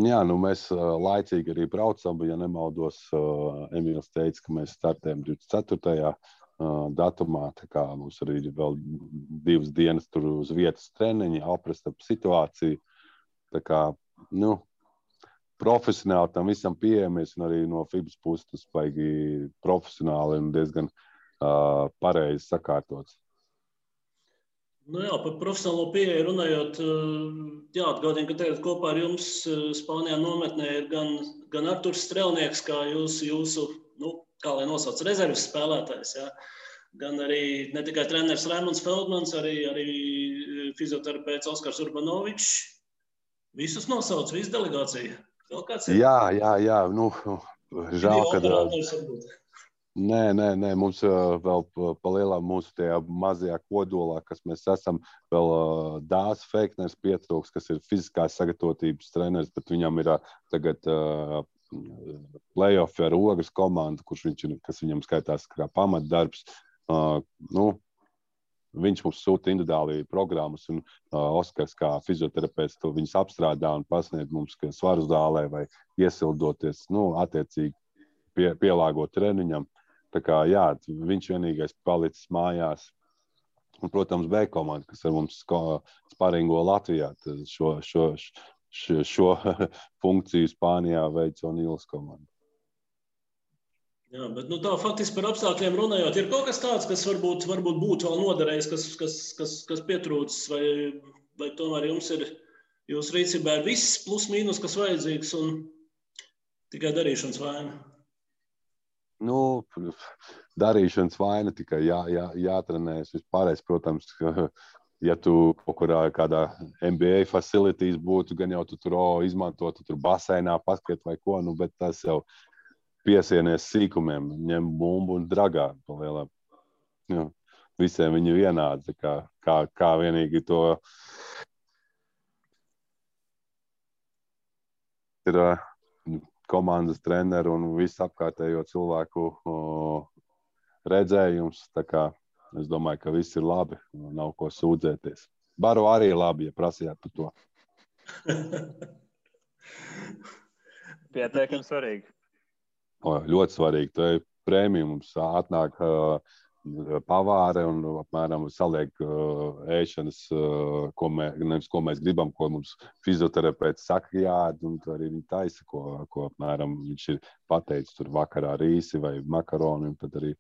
Jā, mēs laicīgi arī braucam, ja nemaldos, Emīls teica, ka mēs startējam 24. datumā, tā kā mums arī ir vēl 2 dienas tur uz vietas treniņi, aprast ap situāciju, tā kā, profesionāli tam visam pieejamies, un arī no FIBAS puses tas baigi profesionāli un diezgan pareizi sakārtots. Jā, par profesionālo pieeju runājot, jāatgādina, ka tagad kopā ar jums Spānijā nometnē ir gan Arturs Strelnieks, kā jūsu kā lai nosauc, rezerves spēlētājs, jā. Gan arī ne tikai treneris Raimonds Feldmans, arī fizioterapeits Oskars Urbanovičs. Visus nosauc, visu delegāciju. Vēl kāds ir? Jā. Žēl, kad... Nē, mums vēl palielām mūsu tajā mazajā kodolā, kas mēs esam, vēl Dārs Feikners pietrūks, kas ir fiziskās sagatavotības treneris, bet viņam ir tagad play-off ar Ogres komandu, kas viņam skaitās kā pamatdarbs. Viņš mums sūta individuāli programmas, un Oskars kā fizioterapeits to viņus apstrādā un pasniedz mums svaru zālē vai iesildoties, attiecīgi pielāgot treniņam. Tā kā, jā, viņš vienīgais palicis mājās Un, protams, B komanda, kas ar mums sparingo Latvijā. Šo funkciju Spānijā veic O'Neils komanda. Jā, bet tā faktiski par apstākļiem runājot, ir kaut kas tāds, kas varbūt būtu vēl noderējis, kas pietrūcis, vai tomēr jūsu rīcībā ir viss plus mīnus, kas vajadzīgs un tikai darīšanas vaina? Darīšanas vaina tikai jātrenējas. Vispārējais, protams, ja tu kaut kur kādā NBA facilities būtu, gan jau tu tur izmantotu, tur basēnā paskriet vai ko, bet tas jau piesienies sīkumiem, ņem bumbu un dragā pa lielām. Visiem viņi vienādi, kā vienīgi to ir komandas treneru un visu apkārtējo cilvēku redzējums. Tā kā es domāju, ka viss ir labi, nav ko sūdzēties. Baro arī labi, ja prasījāt par to. Pietiekami svarīgi. Ļoti svarīgi. Tā ir prēmija. Mums atnāk pavāre un apmēram saliek ēšanas, ko mēs gribam, ko mums fizioterapeits saka jāēd, un arī viņi taisa, ko apmēram viņš ir pateicis tur vakarā rīsi vai makaroni, un tad arī,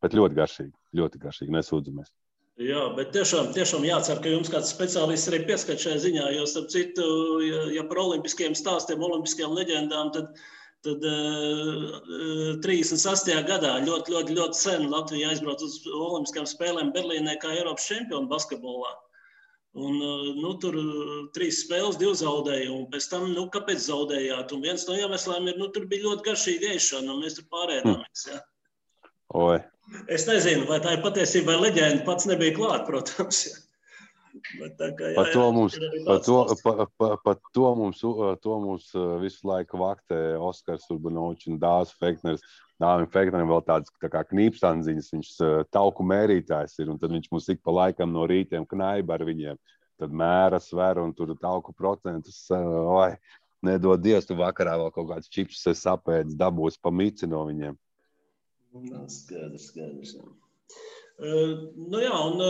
bet ļoti garšīgi, nesūdzamies. Jā, bet tiešām jācer, ka jums kāds speciālists arī pieskat šajā ziņā, jo starp citu, ja par olimpiskiem stāstiem, olimpiskajām leģendām, tad 36. gadā ļoti sen Latvija aizbrauca uz olimpiskajām spēlēm Berlīnē kā Eiropas čempioni basketbolā. Un tur 3 spēles, 2 zaudēja, un pēc tam, kāpēc zaudējāt? Un viens no iemesliem ir, tur bija ļoti garšīga ēšana, un mēs tur pārēdāmies, jā. Oi. Es nezinu, vai tā ir patiesībā leģenda, pats nebija klāt, protams, jā. Par to mums visu laiku vaktē Oskars Urbanovičs un Dāvis Fekners. Dāvim Feknerim vēl tāds tā kā knīpstandziņas, viņš tauku mērītājs ir, un tad viņš mums ik pa laikam no rītiem knaiba ar viņiem. Tad mēra, sver, un tur tauku procentus, nedod Dievs, tu vakarā vēl kaut kāds čips sapēdis, dabūs pa mici no viņiem. Skaidrs, jā. Jā, un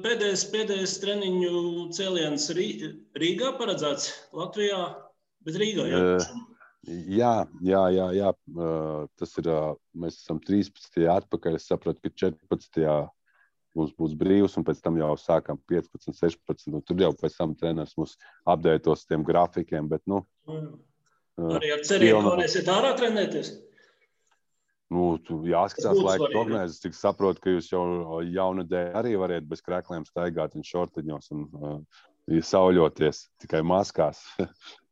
pēdējais treniņu cēliens Rīgā paredzēts Latvijā, bet Rīgā, jā? Jā. Tas ir, mēs esam 13. atpakaļ, es sapratu, ka 14. mums būs brīvs, un pēc tam jau sākam 15, 16, un tur jau pēc tam treneris mums apdētos tiem grafikiem, bet, arī ar cerību, ka varēsiet ārā trenēties? Jāskatās laika prognozes, cik saprotu, ka jūs jau jaunadēļ arī variet bez krekliem staigāt un šortiņos un sauļoties tikai maskās.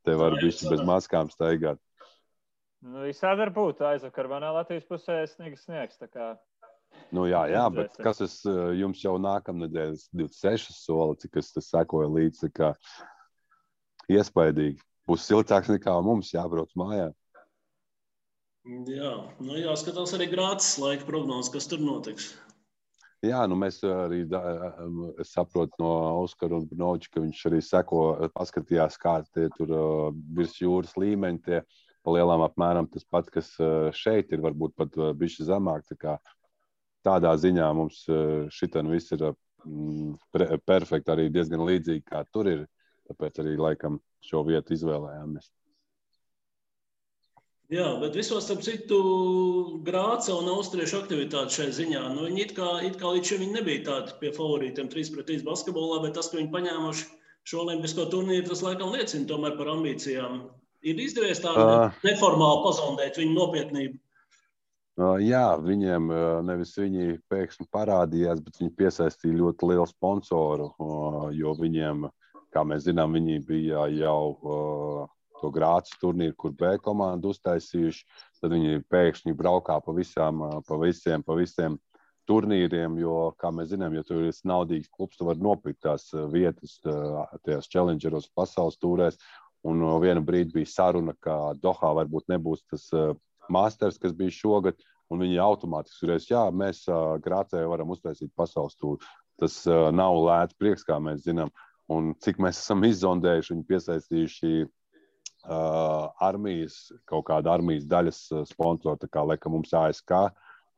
Te var bišķi bez maskām staigāt. Visādi var būt. Aizvakar manā Latvijas pusē sniegs, tā kā. Jā, bet kas jums jau nākamnedēļ 26 soli, cik es sekoju līdz, tā kā iespaidīgi. Būs siltāks nekā mums jābrauc mājā. Jā, jāskatās arī Grācis laika prognozes, kas tur notiks. Jā, mēs arī saprotu no Oskara Urbanoviča, ka viņš arī paskatījās, kā tie tur virs jūras līmeņi, tie pa lielām apmēram tas pats, kas šeit ir, varbūt pat bišķi zemāk. Tādā ziņā mums šitan viss ir perfekti, arī diezgan līdzīgi, kā tur ir, tāpēc arī laikam šo vietu izvēlējāmies. Jā, bet visos, starp citu, Grāca un austriešu aktivitāte šai ziņā. Viņi it kā līdz šim nebija tādi pie favorītiem 3-3 basketbolā, bet tas, ka viņi paņēmuši šo olimpisko turnīru, tas laikam liecina tomēr par ambīcijām. Ir izdevies tādu neformāli pazondēt viņu nopietnību? Jā, viņiem nevis viņi pēkšņi parādījās, bet viņi piesaistīja ļoti lielu sponsoru, jo viņiem, kā mēs zinām, viņi bija jau to Grācis turnīru, kur B komandu uztaisījuši, tad viņi pēkšņi braukā pa visiem turnīriem, jo, kā mēs zinām, ja tur ir naudīgs klubs, tu vari nopirkt tās vietas, tajās challengeros pasaules tūrēs, un vienu brīdi bija saruna, ka Dohā varbūt nebūs tas masters, kas bija šogad, un viņi automātiski turēs, jā, mēs Grācē varam uztaisīt pasaules tūru. Tas nav lēts prieks, kā mēs zinām, un cik mēs esam izzondējuši, viņi piesaistījuši kaut kāda armijas daļas sponsoru, tā kā laikam mums ASK,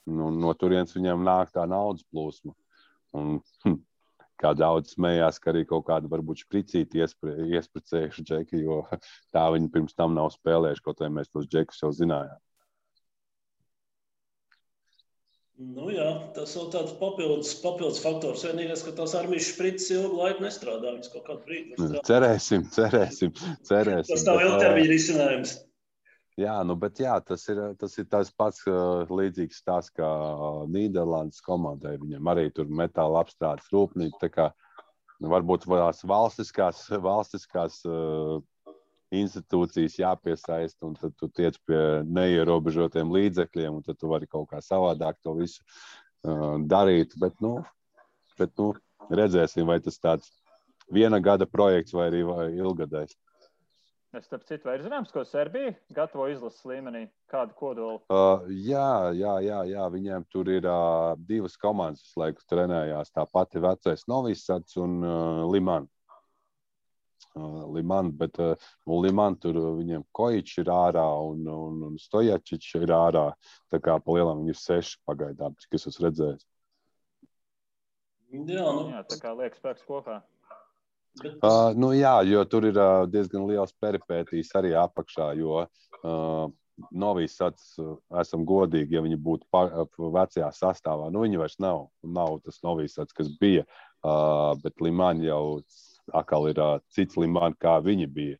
no turienes viņiem nāk tā naudas plūsma. Un, kā daudz smējās, ka arī kaut kādu varbūt špricīti iespricējuši džeki, jo tā viņi pirms tam nav spēlējuši, kaut vai mēs tos džekus jau zinājām. Nu jā, tas vēl tāds papildus faktors. Vienīgais, ka tās armijas špricis ilgu laiku nestrādā. Viņas kaut kādu brīdi Cerēsim. Tas nav ilgtermiņa risinājums. Jā, bet tas ir tas pats līdzīgs tās, kā Nīderlandes komandai. Viņam arī tur metāla apstrādes rūpnīca. Tā kā varbūt tās valstiskās institūcijas jāpiesaista, un tad tu tiec pie neierobežotiem līdzekļiem, un tad tu vari kaut kā savādāk to visu darīt. Bet redzēsim, vai tas tāds viena gada projekts vai arī ilgadējs. Starp citu, vai ir zināms, ko Serbija gatavo izlases līmenī? Kādu kodolu? Jā. Viņiem tur ir divas komandas, kas laiku trenējās. Tā pati vecais Novisats un Liman. Bet Liman tur viņiem Kojičs ir ārā un Stojačičs ir ārā. Tā kā pa lielam viņi ir 6 pagaidām, cik es esmu redzējis. Jā, tā kā liek spēks kopā. Jā, jo tur ir diezgan liels peripētīs arī apakšā, jo Novisats, esam godīgi, ja viņi būtu vecajā sastāvā. Viņi vairs nav tas Novisats, kas bija, bet Liman jau atkal ir cits Liman, kā viņi bija.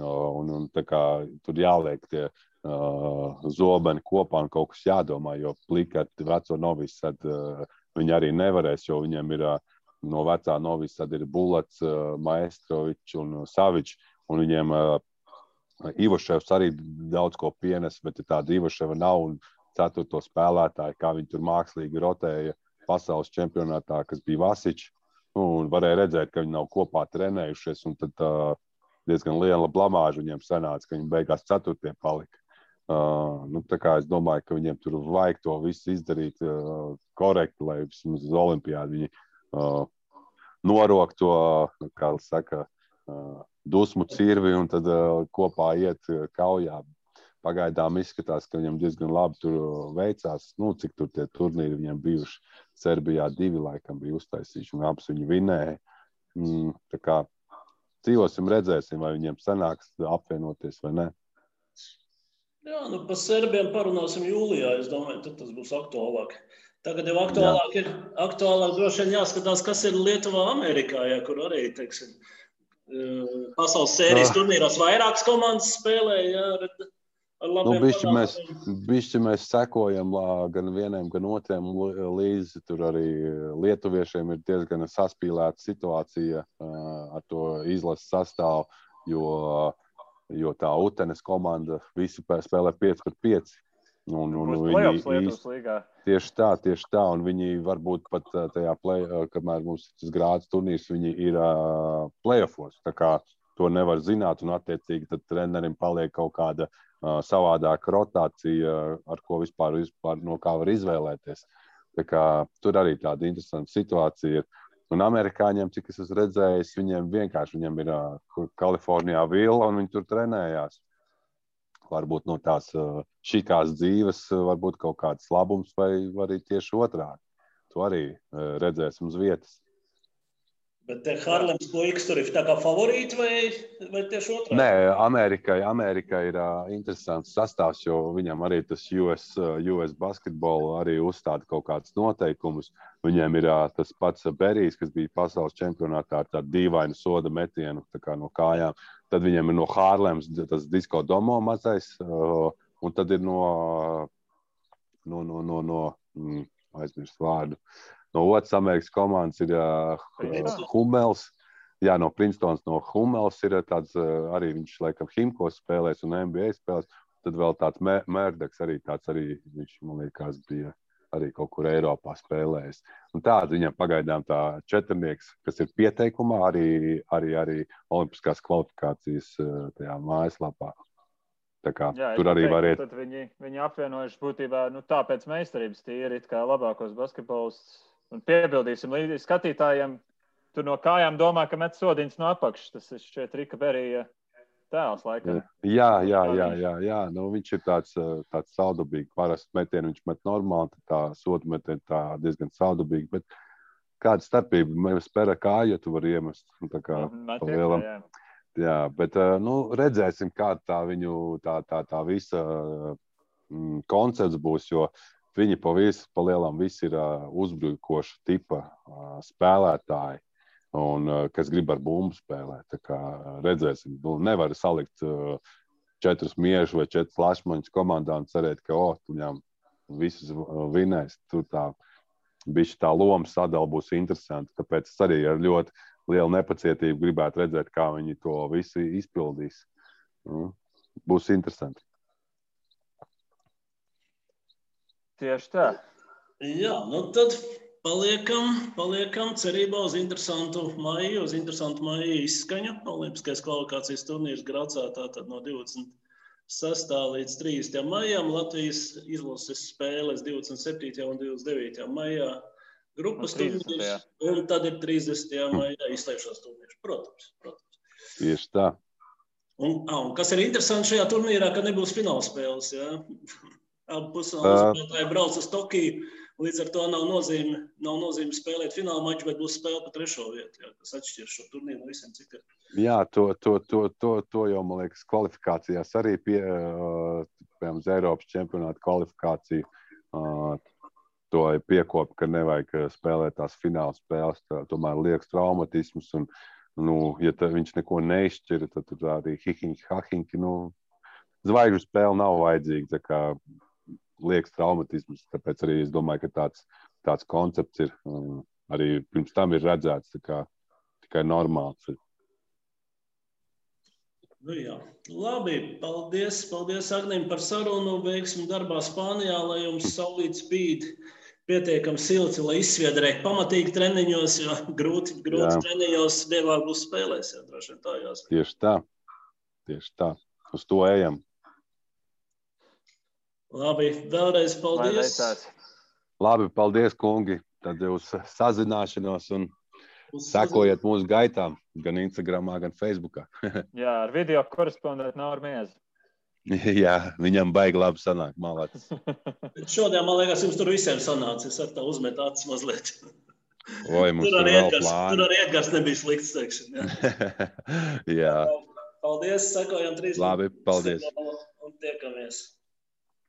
Un tā kā tur jāliek tie zobeni kopā un kaut kas jādomā, jo plikati veco Novisatu viņi arī nevarēs, jo viņiem ir no vecā Novisata ir Bulats, Maestrovičs un Savičs, un viņiem Ivoševs arī daudz ko pienes, bet tāda Ivoševa nav un 4. spēlētāji, kā viņi tur mākslīgi rotēja pasaules čempionātā, kas bija Vasičs, un varēja redzēt, ka viņi nav kopā trenējušies, un tad diezgan liela blamāža viņiem sanāca, ka viņi beigās 4. palika. Tā kā es domāju, ka viņiem tur vajag to visu izdarīt korekti, lai vismaz uz olimpiādu viņi norok to, kā saka, dusmu cirvi un tad kopā iet kaujā. Pagaidām izskatās, ka viņam diezgan labi tur veicās. Cik tur tie turnīri viņam bijuši. Serbijā 2 laikam bija uztaisījuši un abas viņi vinēja. Tā kā dzīvosim, redzēsim, vai viņiem sanāks apvienoties vai ne. Jā, par serbiem parunāsim jūlijā, es domāju, tad tas būs aktuālāk. Tagad jau aktuālāk droši vien jāskatās, kas ir Lietuvā, Amerikā, kur arī, teiksim, pasaules sērijas turnīros vairākas komandas spēlē, ar labiem panākumiem. Bišķi mēs sekojam gan vieniem, gan otriem līdzi. Tur arī lietuviešiem ir diezgan saspīlēta situācija ar to izlases sastāvu, jo tā Utenes komanda visi spēlē 5-5. Tieši tā, un viņi varbūt pat tajā kamēr mums tas grāds turnīrs, viņi ir playoffos. Tā kā to nevar zināt, un attiecīgi tad trenerim paliek kaut kāda savādāka rotācija, ar ko vispār no kā var izvēlēties. Tā kā tur arī tāda interesanta situācija ir. Un amerikāņiem, cik es esmu redzējis, viņiem ir Kalifornijā vila, un viņi tur trenējās. Varbūt no tās šikās dzīves, varbūt kaut kāds labums, vai arī tieši otrādi. To arī redzēsim uz vietas. Bet te Harlems puikas tur ir tā kā favorīti vai tieši otrādi? Nē, Amerikai ir interesants sastāvs, jo viņam arī tas US basketbolu arī uzstāda kaut kāds noteikumus. Viņiem ir tas pats Berijs, kas bija pasaules čempionātā ar tādu dīvainu soda metienu tā kā no kājām. Tad viņiem ir no Harlems tas Disko Domo mazais, un tad ir no aizmirst vārdu. No otras Amerikas komandas ir Hummels. Jā, no Princetons, no Hummels ir tāds, arī viņš laikam Himkos spēlēs un NBA spēlēs. Tad vēl tāds Mērdeks arī tāds arī, viņš, man liekas, bija arī kaut kur Eiropā spēlējis. Un tāds viņam pagaidām tā četrnieks, kas ir pieteikumā, arī olimpiskās kvalifikācijas tajā mājaslapā. Tā kā tur arī var iet. Tad viņi apvienojuši būtībā, tāpēc meistarības tīri it kā labākos basketbolists. Un piebildīsim līdzi skatītājiem, tur no kājām domā, ka met sodiņas no apakšas. Tas ir šķiet Rika Berija tēls laikam. Jā. Viņš ir tāds saudabīgi. Parasti metienu viņš met normāli, tā sodu metienu tā diezgan saudabīgi. Bet Kāda starpība? Mēs spēlē kāju, ja tu vari iemest. Tā kā pa lielam. Jā, bet redzēsim, kāda tā viņu tā visa koncepts būs, jo viņi pa lielam visi ir uzbrukoša tipa spēlētāji, un kas grib ar bumbu spēlēt. Tā kā redzēsim. Nevar salikt 4 miežu vai 4 lašmaņus komandā un cerēt, ka viņam visus vinēs. Tur bišķi tā loma sadala būs interesanti, tāpēc es arī ar ļoti lielu nepacietību gribētu redzēt, kā viņi to visu izpildīs. Būs interesanti. Tieši tā. Jā, tad paliekam cerībā uz interesantu maiju izskaņu. Olimpiskais kvalifikācijas turnīrs Gracā tātad no 26. līdz 30. maijam. Latvijas izlases spēles 27. un 29. maijā. Grupas turnīrs, un tad ir 30. maijā izslēgšanas turnīrs. Protams. Tieši tā. Un kas ir interesanti šajā turnīrā, ka nebūs finālspēles. Ja? Abi pusfinālspēlētāji brauc uz Tokiju, līdz ar to nav nozīme spēlēt fināla maču, bet būs spēle pa 3. vietu, ja? Kas atšķir šo turnīru no visiem citiem. Jā, to jau, man liekas, kvalifikācijās arī piemēram, uz Eiropas čempionāta kvalifikāciju. To ir piekopa, ka nevajag spēlēt tās fināla spēles, tomēr liekas traumatismus, un, ja viņš neko neizšķira, tad tur arī hahinki, zvaigžu spēle nav vajadzīga, tā kā liekas traumatismus, tāpēc arī es domāju, ka tāds koncepts ir, arī pirms tam ir redzēts, tā kā tikai normāls ir. Jā. Labi, paldies Agnim par sarunu, veiksim darbā Spānijā, lai jums saulīt spīd pietiekami silti, lai izsviedrētu pamatīgi treniņos, jo grūti treniņos dievāk būs spēlēs, jā, droši vien tā jāsaka. Tieši tā, uz to ejam. Labi, vēlreiz paldies. Labi, paldies, kungi, tad uz sazināšanos un sekojiet mūsu gaitām, gan Instagramā, gan Facebookā. Jā, ar video korespondentu Nauru Miezi. Jā, viņam baigi labi sanāk, malācis. Šodien, man liekas, jums tur visiem sanāca. Es ar tā uzmetu acis mazliet. Mums tur vēl plāni. Tur arī Edgars nebija slikts, teiksim. Jā. Paldies, sekojam 3. Labi, paldies. Un tiekamies.